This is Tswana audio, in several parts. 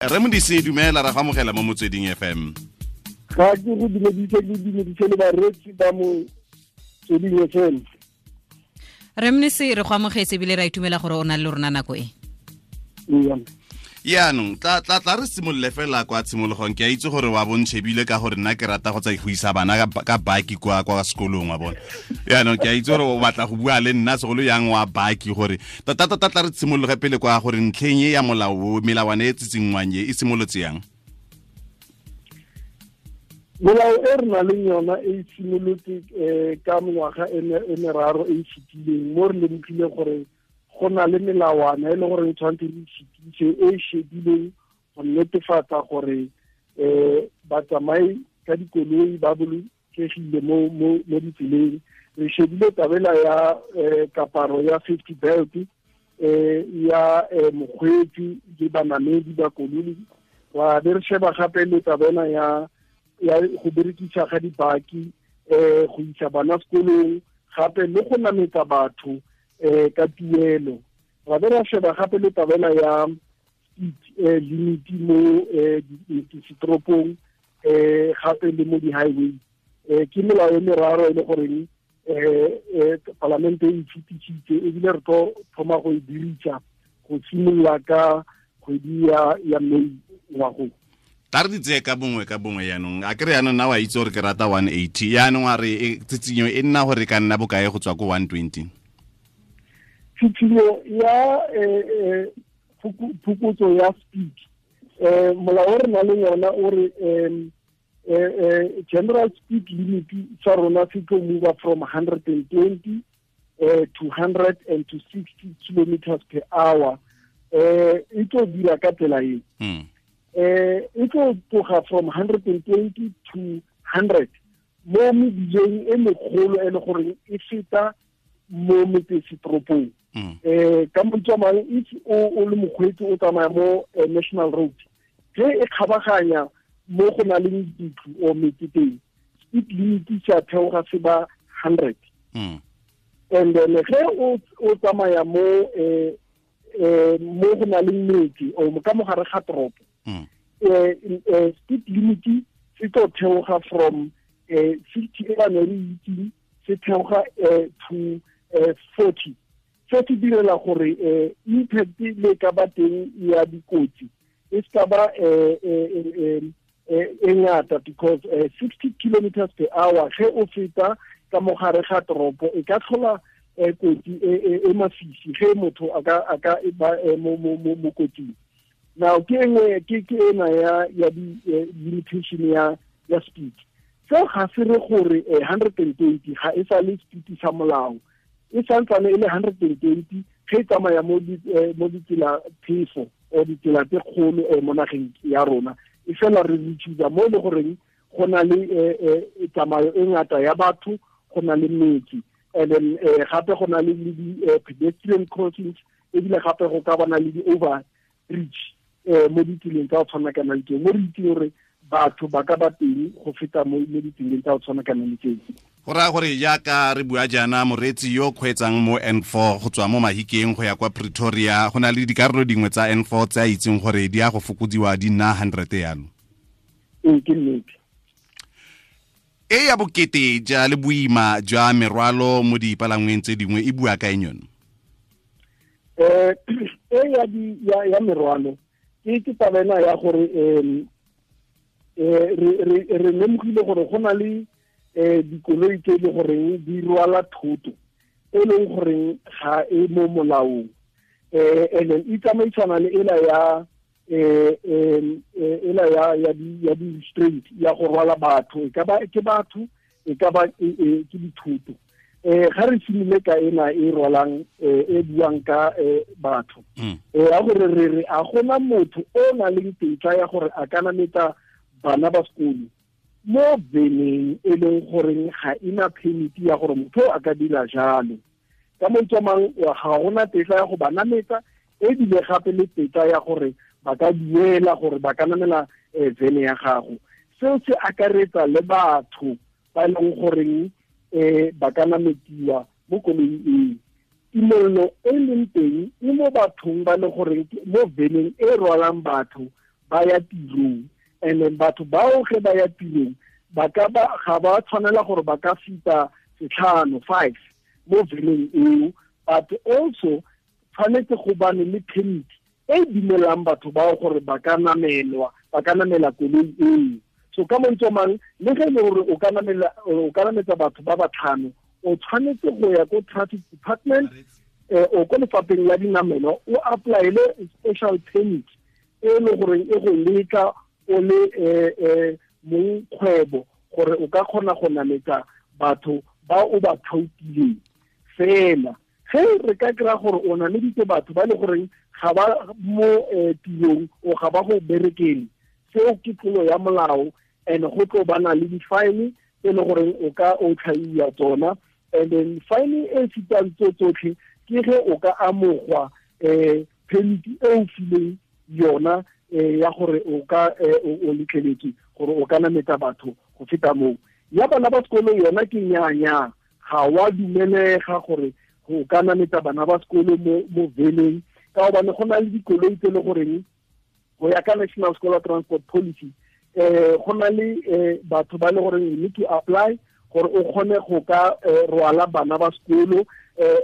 Re Modise, dumela, ra go amogela mo Motsweding FM. Ga ke go dumedise, le dumedise le bareetsi ba Motsweding FM. Re Mnisi, re go amogetse ebile ra itumela gore o na le rona nako e. Yaanong tla re simolole fela kwa tshimologong. Ke a itse gore wa bontšhebile ka gore nna ke rata go tsa go isa bana ka baki kwa sekolong wa bona. Yaanong ke a itse gore o batla go bua le nna segolo yang wa baki, gore tota tota tla re simologe pele kwa gore ntlheng e ya molao, melawana e tsitsingwang e simolotse yang? Molao e re nang le yona e simolotse ka mengwaga e meraro e e fetileng, mo re lemogile gore go na le melawana e leng gore e tshwanetse re fetise, e shedileng go netefatsa gore batsamai ka dikoloi ba bolokegile mo ditseleng. Re shebile tabela ya kaparo ya safety belt ya mokgweetsi le banamedi ba koloi. Ra be re sheba gape le tabela ya go berekisa ga dibaki, go isa bana sekolong, gape le go nametsa batho ka tuelo. Ra be ra sheba gape le tabela ya speed limit mo ditoropong, gape le mo di-highway. Ke melao e meraro e le goreng palamente e fetisitse, ebile re tlo thoma go e dirisa go simolola ka kgwedi ya May ngwagong. Tla re di tseye ka bongwe ka bongwe yaanong. A kere yaanong nna wa itse gore ke rata 180, yaanong a re tsitsinyo e nna gore ka nna bokae go tswa ko 120? Tsitsinyo ya phokotso ya speed, molao o re nang le yona o re general speed limit sa rona se tlo move from 120 to 100 and to 60 kilometers per hour. E tlo dira ka tsela e. E tlo tloga from 120 to 100 mo mebileng e megolo e le gore e feta mo metsesetoropong. Ka mantswe a mangwe, if o le mokgweetsi o tsamaya mo national road, ge e kgabaganya mo go na leng ditlo o metse teng, speed limit sa theoga se ba 100. And then ge o tsamaya mo mo go na leng metse o ka mogare ga toropo, speed limit se tlo theoga from 60 e ba ne re itseng, se theoga to 40. Se se direla gore impact le ka ba teng ya dikotsi e se ba e ngata, because 60 kilometers per hour ge o feta ka mogare ga toropo e ka tlhola kotsi e masisi ge motho a ka ba mo kotsing. Now ke engwe ke ena ya di limitation ya speed. Seo ga se re gore 120 ga e sa le speed sa molao, e santsane e le 120 ge e tsamaya mo ditsela phefo o ditsela tse kgolo mo nageng ya rona. E fela re rechusa mo e le goreng go na le tsamayo e ngata ya batho, go na le metsi, and then gape go na le di pedestrian crossings, ebile gape go ka bana le di-over bridge mo ditseleng tsa go tshwana kana le tseo, mo re itseng gore batho ba ka ba teng go feta mo ditseleng tsa go tshwana kana le tseo. Go raya gore jaaka re bua jaana, moreetsi yo kgweetsang mo N4 go tswa mo Mahikeng go ya kwa Pretoria, go na le dikarolo dingwe tsa N4 tse a itseng gore di ya go fokodiwa di nna 100 yalo. Ee, ke nnete. E ya bokete ja le boima jwa merwalo mo dipalangweng tse dingwe e bua ka eng yone? E ya merwalo ke taba ena ya gore re lemogile gore go na le dikoloi tse e le goreng di rwala thoto e leng goreng ga e mo molaong, and then e tsamaisana le ela ya ela ya di restraint ya go rwala batho, e ka ba ke batho, e ka ba ke dithoto. Ga re simole ka ena e rwalang e buang ka batho, ya gore re re a gona motho o na leng tetla ya gore a ka nametsa bana ba sekolo mo veneng e leng goreng ga ena permit ya gore motho a ka dira jalo. Ka mantswe a mangwe, ga gona tetla ya go ba nametsa, ebile gape le tetla ya gore ba ka duela gore ba ka namela vene ya gago. Seo se akaretsa le batho ba e leng goreng ba ka nametiwa mo koloing eo. Tumello e leng teng e mo bathong ba le goreng mo veneng e rwalang batho ba ya tirong. And then batho bao ge ba ya tirong ba ka ba ga ba tshwanela gore ba ka fita 5 mo veneng eo, but also tshwanetse go bane le permit e dumelang batho bao gore ba ka namela koloi eo. So ka mantswe mang, le ge e le gore o ka nametsa batho ba batlhano, o tshwanetse go ya ko traffic department o ko lefapheng la dinamelo, o applyele special permit e le gore e go letla o le mong kgwebo gore o ka kgona go nametsa batho ba o ba thaotileng. Fela ge re ka kry-a gore o nameditse batho ba le goreng ga ba mo tirong o ga ba go berekele, seo ke tlolo ya molao, and go tlo bana le di-fine tse le goreng o ka o tlhaiwa tsona. And then fine e fetang tso tsotlhe ke ge o ka amogwa permit e o fileng yona ya gore o ka o letleletswe gore o ka nametsa batho go feta moo. Ya bana ba sekolo yona ke nyaa, ga wa dumelega gore go ka nametsa bana ba sekolo mo veneng, ka gobane go na le dikoloi tse le goreng go ya ka National Scholar Transport Policy go na le batho ba le goreng you need to apply gore o kgone go ka rwala bana ba sekolo,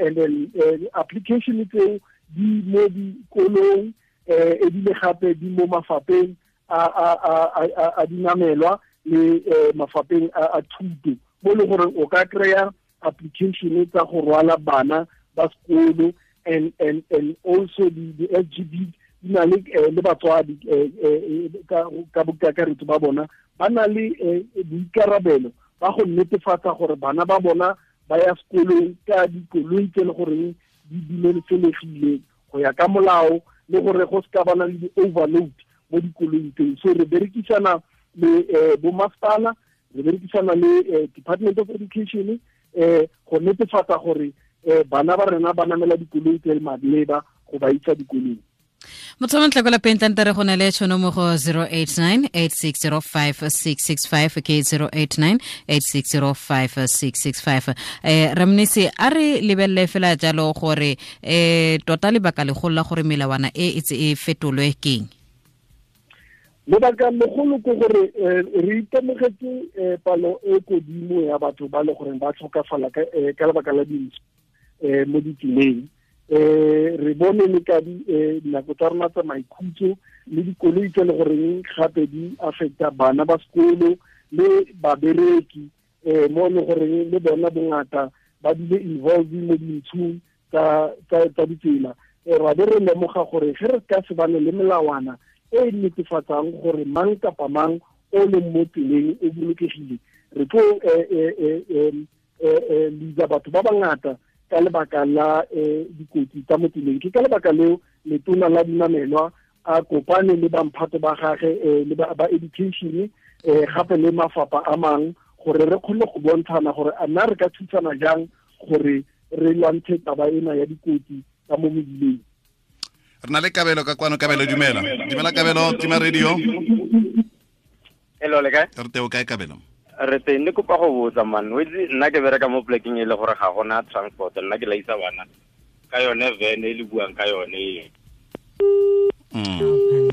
and then application tseo di mo dikolong, ebile gape di mo mafapheng a dinamelwa le mafapheng a thuto, mo le gore o ka kry-a application tsa go rwala bana ba sekolo. And also the SGB di na le batswadi ka bokakaretso ba bona ba na le boikarabelo ba go netefatsa gore bana ba bona ba ya sekolong ka dikoloi tse le goreng di dumelesegile go ya ka molao, le gore go se ka bana le di-overload mo dikoloing tseo. So re berekisana le bo masepala, re berekisana le Department of Education go netefatsa gore bana ba rena ba namela dikoloi tse maleba go ba isa dikolong. Motho montle kwa lapeng tlante re go na le tšhono mo go 089 8605665 ke 089 8605665. Ramnisi, a re lebelele fela jalo gore tota lebaka legolo la gore melawana e e e fetolwe keng? Lebaka legolo ke gore re itemogetse palo e kodimo ya batho ba le goreng ba tlhokafala ka lebaka la dintsho mo ditseleng. Re bone le ka dinako tsa rona tsa maikhutso le dikoloi tse le goreng gape di affecta bana ba sekolo le babereki, mo le goreng le bona bongata ba bile involved mo dintshong tsa ditsela. Ra be re lemoga gore ge re ka se bane le melawana e netefatsang gore mang kapa mang o leng mo tseleng o bolokegile, re tlo lisa batho ba bangata ka lebaka la dikotsi tsa mo tseleng. Ke ka lebaka leo letona la dinamelwa a kopane le bamphato ba gage le ba education gape le mafapha a mang gore re kgone go bontshana gore a nna re ka thusana jang gore re lwantshe taba ena ya dikotsi tsa mo mebileng. Re na le Kabelo ka kwano. Kabelo, dumela. Dumela Kabelo, tima radio. Hello, le kae? Re teng, o kae Kabelo? Re teng, ne kopa go botsa man. O itse nna ke bereka mo plekeng e le gore ga gona transport, nna ke laisa bana ka yone van e le buang ka yone.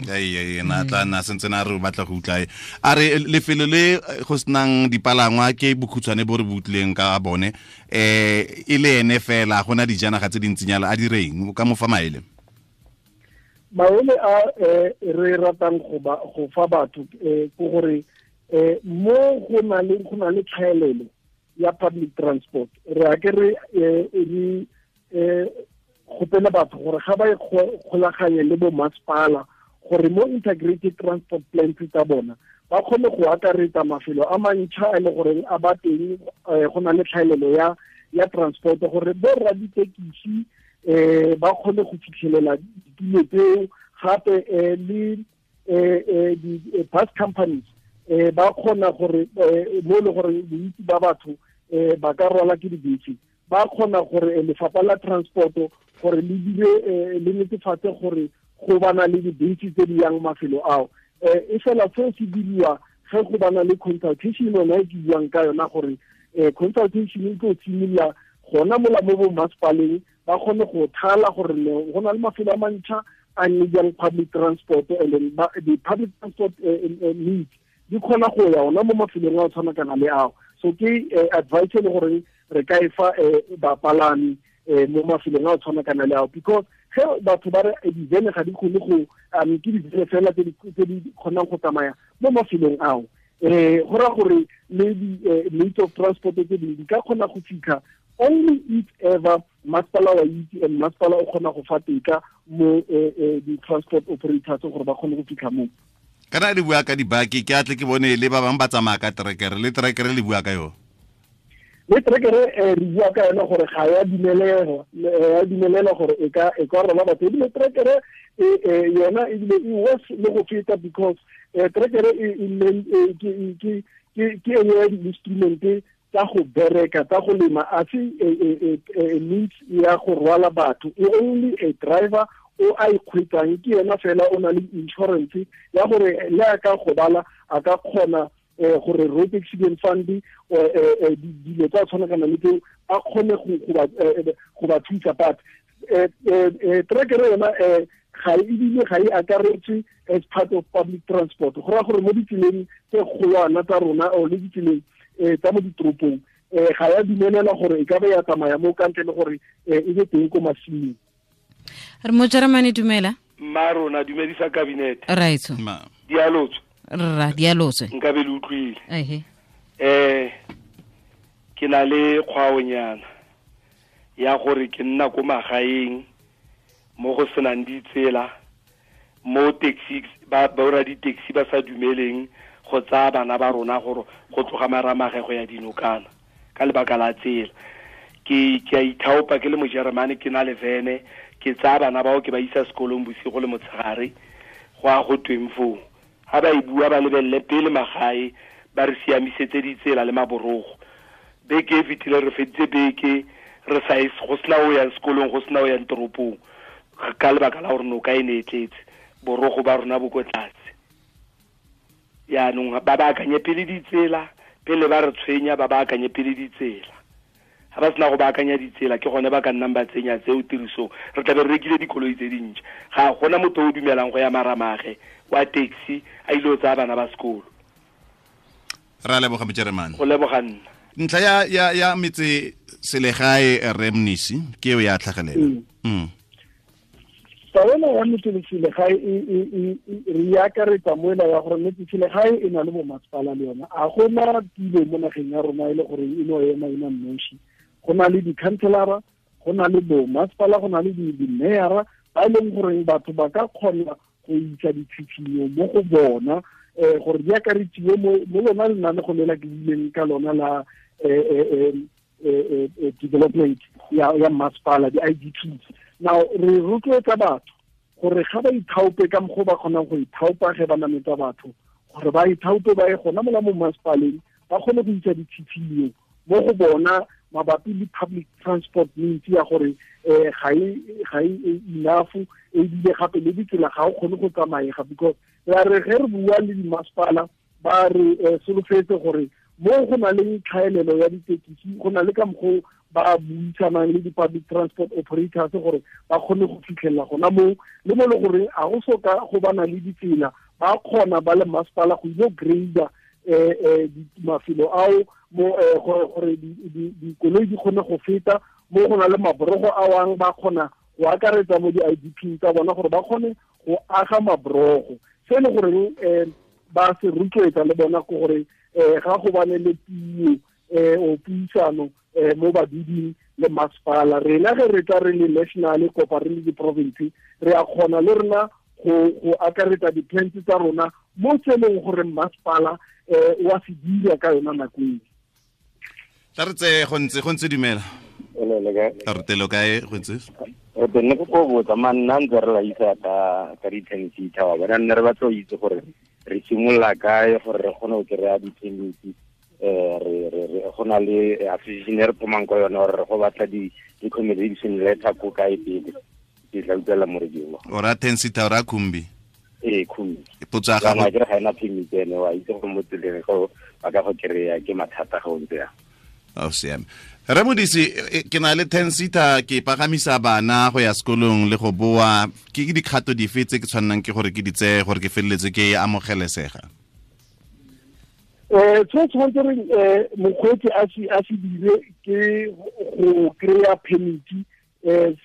Ai na tla na sentse na re batla go utla. A re lefelo le go senang dipalangwa ke bokhutshwane bo re butleng ka bone, e le ene fela gona dijanaga tse dintsinyana, a direng ka mo fa maele? Maele a re ratang go fa batho ke gore mo go na le tlhaelelo ya public transport, re a ke re gopela batho gore ga ba kgolaganye le bo masepala gore mo integrated transport plans tsa bona ba kgone go akaretsa mafelo a mantšha a le goreng a ba teng go na le tlhaelelo ya transport, gore bo rra ditekisi ba kgone go fitlhelela ditulo tseo, gape le di-bus companies ba kgona gore mo le gore bontsi ba batho ba ka rwala ke dibese, ba kgona gore lefapha la transport gore le dire le netefatse gore go bana le dibese tse di yang mafelo ao. E fela seo se diriwa ge go bana le consultation yona e ke buang ka yona, gore consultation e tlo simolola gona mola mo bo masepaleng, ba kgone go thala gore go na le mafelo a mantšha a needang public transport, and then the public transport needs di kgona go ya ona mo mafelong a tshwana kana le ao. So ke advice le gore re ka e fa bapalami mo mafelong a tshwana kana le ao, because ge batho ba re divene ga di kgone go ke divene fela tse di kgonang go tsamaya mo mafelong ao, go raya gore le di-means of transport tse dingwe di ka kgona go fitlha only if ever masepala wa itse and masepala o kgona go fa teka mo di-transport operators gore ba kgone go fitlha mo. Kana le bua ka dibaki, ke atle ke bone le ba bangwe ba tsamaya ka trekere, le trekere le bua ka yone. Le trekere re bua ka yone gore ga ya dumelelwa gore e ka rwala batho, ebile trekere yona ebile e worse le go feta, because trekere ke e nngwe ya di-instrument tsa go bereka, tsa go lema, a se means ya go rwala batho. E only a driver o a ikgwetsang ke yena fela o na le insurance ya gore le a ka gobala a ka kgona gore road accident fund dilo tsa tshwanakana le tseo a kgone go ba thusa. But trekere yona ga ebile ga e akaretswe as part of public transport, go raya gore mo ditseleng tse kgolwana tsa rona or le ditseleng tsa mo ditoropong ga ya dumelelwa gore e ka ba ya tsamaya mo ka ntle le gore e be teng ko masimong. Re mo Jeremane, dumela. Mma rona, dumedisa cabinet. Raitso. Dialotso. Rra, dialotso. Nka be le utlwile. Ehe. Ke na le kgwaonyana ya gore ke nna ko magaeng mo go senang ditsela, mo taxi ba ba di-taxi ba sa dumeleng go tsaya bana ba rona gore go tloga Maramage go ya dinokana ka lebaka la tsela. Ke a ithaopa ke le Mojeremane, ke na le vene, ke tsaya bana bao ke ba isa sekolong bosigo le motshegare go a go tweng foo. Ha ba e bua ba lebelele pele magae, ba re siamisetse ditsela le maborogo. Beke e fetile re feditse beke re sa go sena o yang sekolong, go sena o yang toropong ka lebaka la gore noka e ne e tletse, borogo ba rona bo ko tlase. Yaanong ba baakanye pele ditsela, pele ba re tshwenya ba baakanye pele ditsela. Ha ba sena go baakanya ditsela ke gone ba ka nnang ba tsenya tseo tirisong. Re tla be re rekile dikoloi tse dintšha. Ga gona motho o dumelang go ya Maramage wa taxi a ile go tsaya bana ba sekolo. Ra leboga Mojeremane. Go leboga nna. Ntlha ya metse selegae Remnisi ke eo ya tlhagelela. Taolo ya metse selegae re akaretsa moela ya gore metse selegae e na le bomasepala le yona. A gona tulo mo nageng ya rona e le gore e no ema ena nosi. Go na le di-councillora, go na le bomasepala, go na le di-mayor ba e leng gore batho ba ka kgona go isa ditshitshinyo mo go bona gore di akaretsiwe mo lona lenanego le la ke buileng ka lona la development ya masepala, di-IDPs. Now re rotloetsa batho gore ga ba ithaope ka mokgwa ba kgonang go ithaopa ge ba nametsa batho, gore ba ithaope ba ye gona mola mo masepaleng ba kgone go isa ditshitshinyo mo go bona mabapi le public transport means ya gore ga e enough, ebile gape le ditsela ga o kgone go tsamaega, because ra re ge re bua le dimasepala ba re solofetse gore mo go na le tlhaelelo ya ditekisi, go na le ka mokgwa ba buisanang le di-public transport operators gore ba kgone go fitlhelela gona moo, le mo le gore a go soka go bana le ditsela ba kgona ba le masepala go ile grader mafelo ao mo gore dikoloi di kgone go feta mo go na le maborogo a wang ba kgona go akaretsa mo di-IDP tsa bona gore ba kgone go aga maborogo. Se le gore ba se rotloetsa le bona ke gore ga go bane le puo o puisano mo baduding le masepala. Rena ge re tla re le national kopa re le di-province re a kgona le rena go akaretsa di-plans tsa rona mo tse leng gore masepala wa se dira ka yona nako eo. Tla re tseye go ntse dumela. Re telo kae go ntse? Re tenne go botsa manna ntse re la isa ka di-ten-seater wa bona, nne re batla go itse gore re simolola kae gore re kgone go kry-a di-permit, re go na le association e re thomang ka yone gore re go batla di-accommodation letter ko kae pele. Ke tla utlwela mo radio. O ra ten-seater o ra khumbi? Ee, khumbi. Potso ya gago. Ke re ga ena permit ene, wa itse gore mo tseleng go ba ka go kry-a ke mathata ga o ntse yang. A o siame. Re Modise, ke na le 10 seater, ke pagamisa bana go ya sekolong le go boa, ke dikgato dife tse ke tshwannang ke gore ke di tseye gore ke feleletse ke amogelesega? Se tshwanetse re mokgweetsi a se dire ke go kry-a permit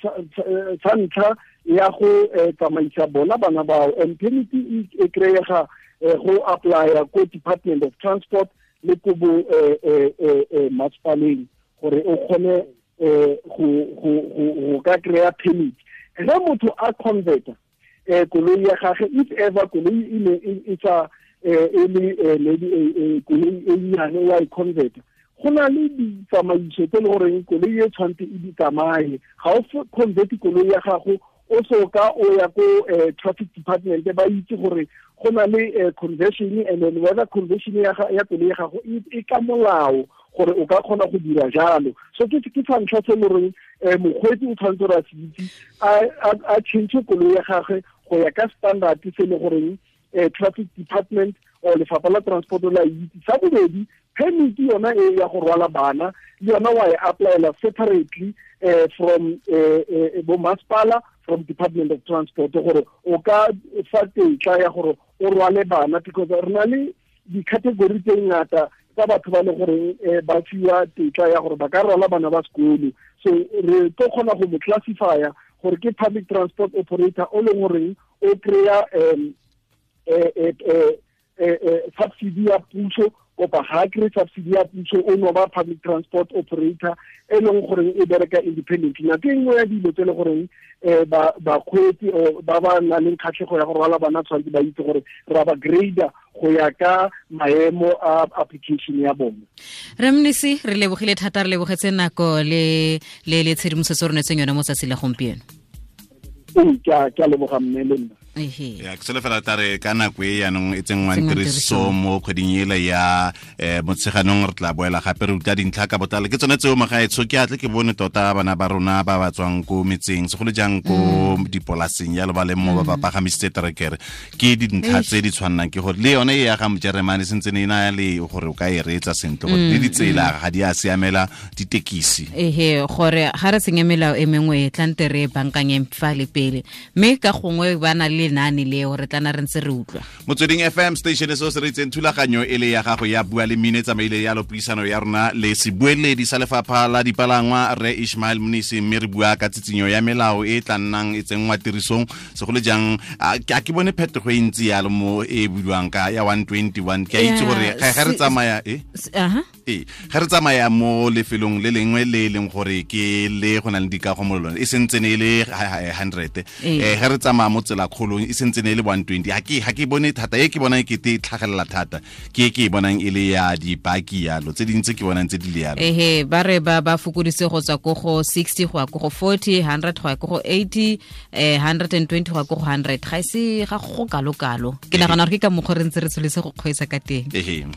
sa ntlha ya go tsamaisa bona bana bao. And permit e kry-ega go apply-a ko Department of Transport le ko bo masepaleng gore o kgone go ka kry-a permit. Ge motho a converta koloi ya gage, if ever koloi e ne e sa e le maybe koloi e nnyane wa e converta, go na le ditsamaiso tse e le goreng koloi e tshwanetse e di tsamaye. Ga o convert koloi ya gago o so ka o ya ko traffic department, ba itse gore go na le conversion, and then whether conversion ya koloi ya gago e ka molao gore o ka kgona go dira jalo. So ke sa ntlha se e le goreng mokgweetsi o tshwanetse gore a se itse, a change koloi ya gagwe go ya ka standard se e le goreng traffic department or lefapha la transport la itse. Sa bobedi, permit yona e ya go rwala bana le yona wa e applyela separately from bo masepala, from Department of Transport, gore o ka fa tetla ya gore o rwale bana, because re na le di-category tse ngata tsa batho ba le goreng ba fiwa tetla ya gore ba ka rwala bana ba sekolo. So re tlo kgona go mo classifya gore ke public transport operator o leng goreng o kry-a subsidy ya puso, kopa ga kry subsidy ya puso, o no ba public transport operator e leng goreng e bereka independently. Nako e nngwe ya dilo tse e le goreng bakgweetsi ba ba nang le kgatlhego ya go rwala bana tshwanetse ba itse gore ra ba grader go ya ka maemo a application ya bone. Re Mnisi, re lebogile thata, re lebogetse nako le le le tshedimosetso re neetseng yone mo tsatsi la gompieno. Ke a leboga mme le nna. Ya, ke solofela tare ka nako e yaanong e tsenngwang tiriso mo kgweding ele ya Motsheganong, re tla boela gape re utlwa dintlha ka botlalo. Ke tsone tseo magaetsho, ke atle ke bone tota bana ba rona ba ba tswang ko metseng, segolo jang ko dipolaseng jalo ba leng mo ba ba pagamisitse terekere. Ke dintlha tse di tshwannang ke gore le yone e ya ga Mojeremane sentse ne e na le gore o ka e reetsa sentle, gore le ditsela ga di a siamela ditekisi. Ehe, gore ga re senye melao e mengwe e tlante re bankanyeng fa le pele, mme ka gongwe ba na le lenaane leo re tla na re ntse re utlwa. Motsweding FM station se se re itseng thulaganyo e le ya gago ya Bua le Mmino e tsamaile yalo puisano ya rona le sebueledi sa lefapha la dipalangwa Rre Ishmael Mnisi, mme re bua ka tsitsinyo ya melao e tla nnang e tsenngwa tirisong segolo jang. A ke bone phetogo e ntsi yalo mo e buiwang ka ya 121. Ke a itse gore ga re tsamaya ga re tsamaya mo lefelong le lengwe le leng gore ke le go na le dikago mo lone e sentse ne e le 100, ga re tsamaya mo tsela kgolong e sentse ne e le 120. Ga ke bone thata e ke bonang ke te tlhagelela thata ke ke bonang e le ya dipaki yalo, tse dintse ke bonang tse di le yalo. Ehe, ba re ba fokoditse go tswa ko go 60 go ya ko go 40, 100 go ya ko go 80, 120 go ya ko go 100. Ga se ga go kalo kalo. Ke nagana gore ke ka mokgwa re ntse re tsholetse go kgweetsa ka teng. Ehe.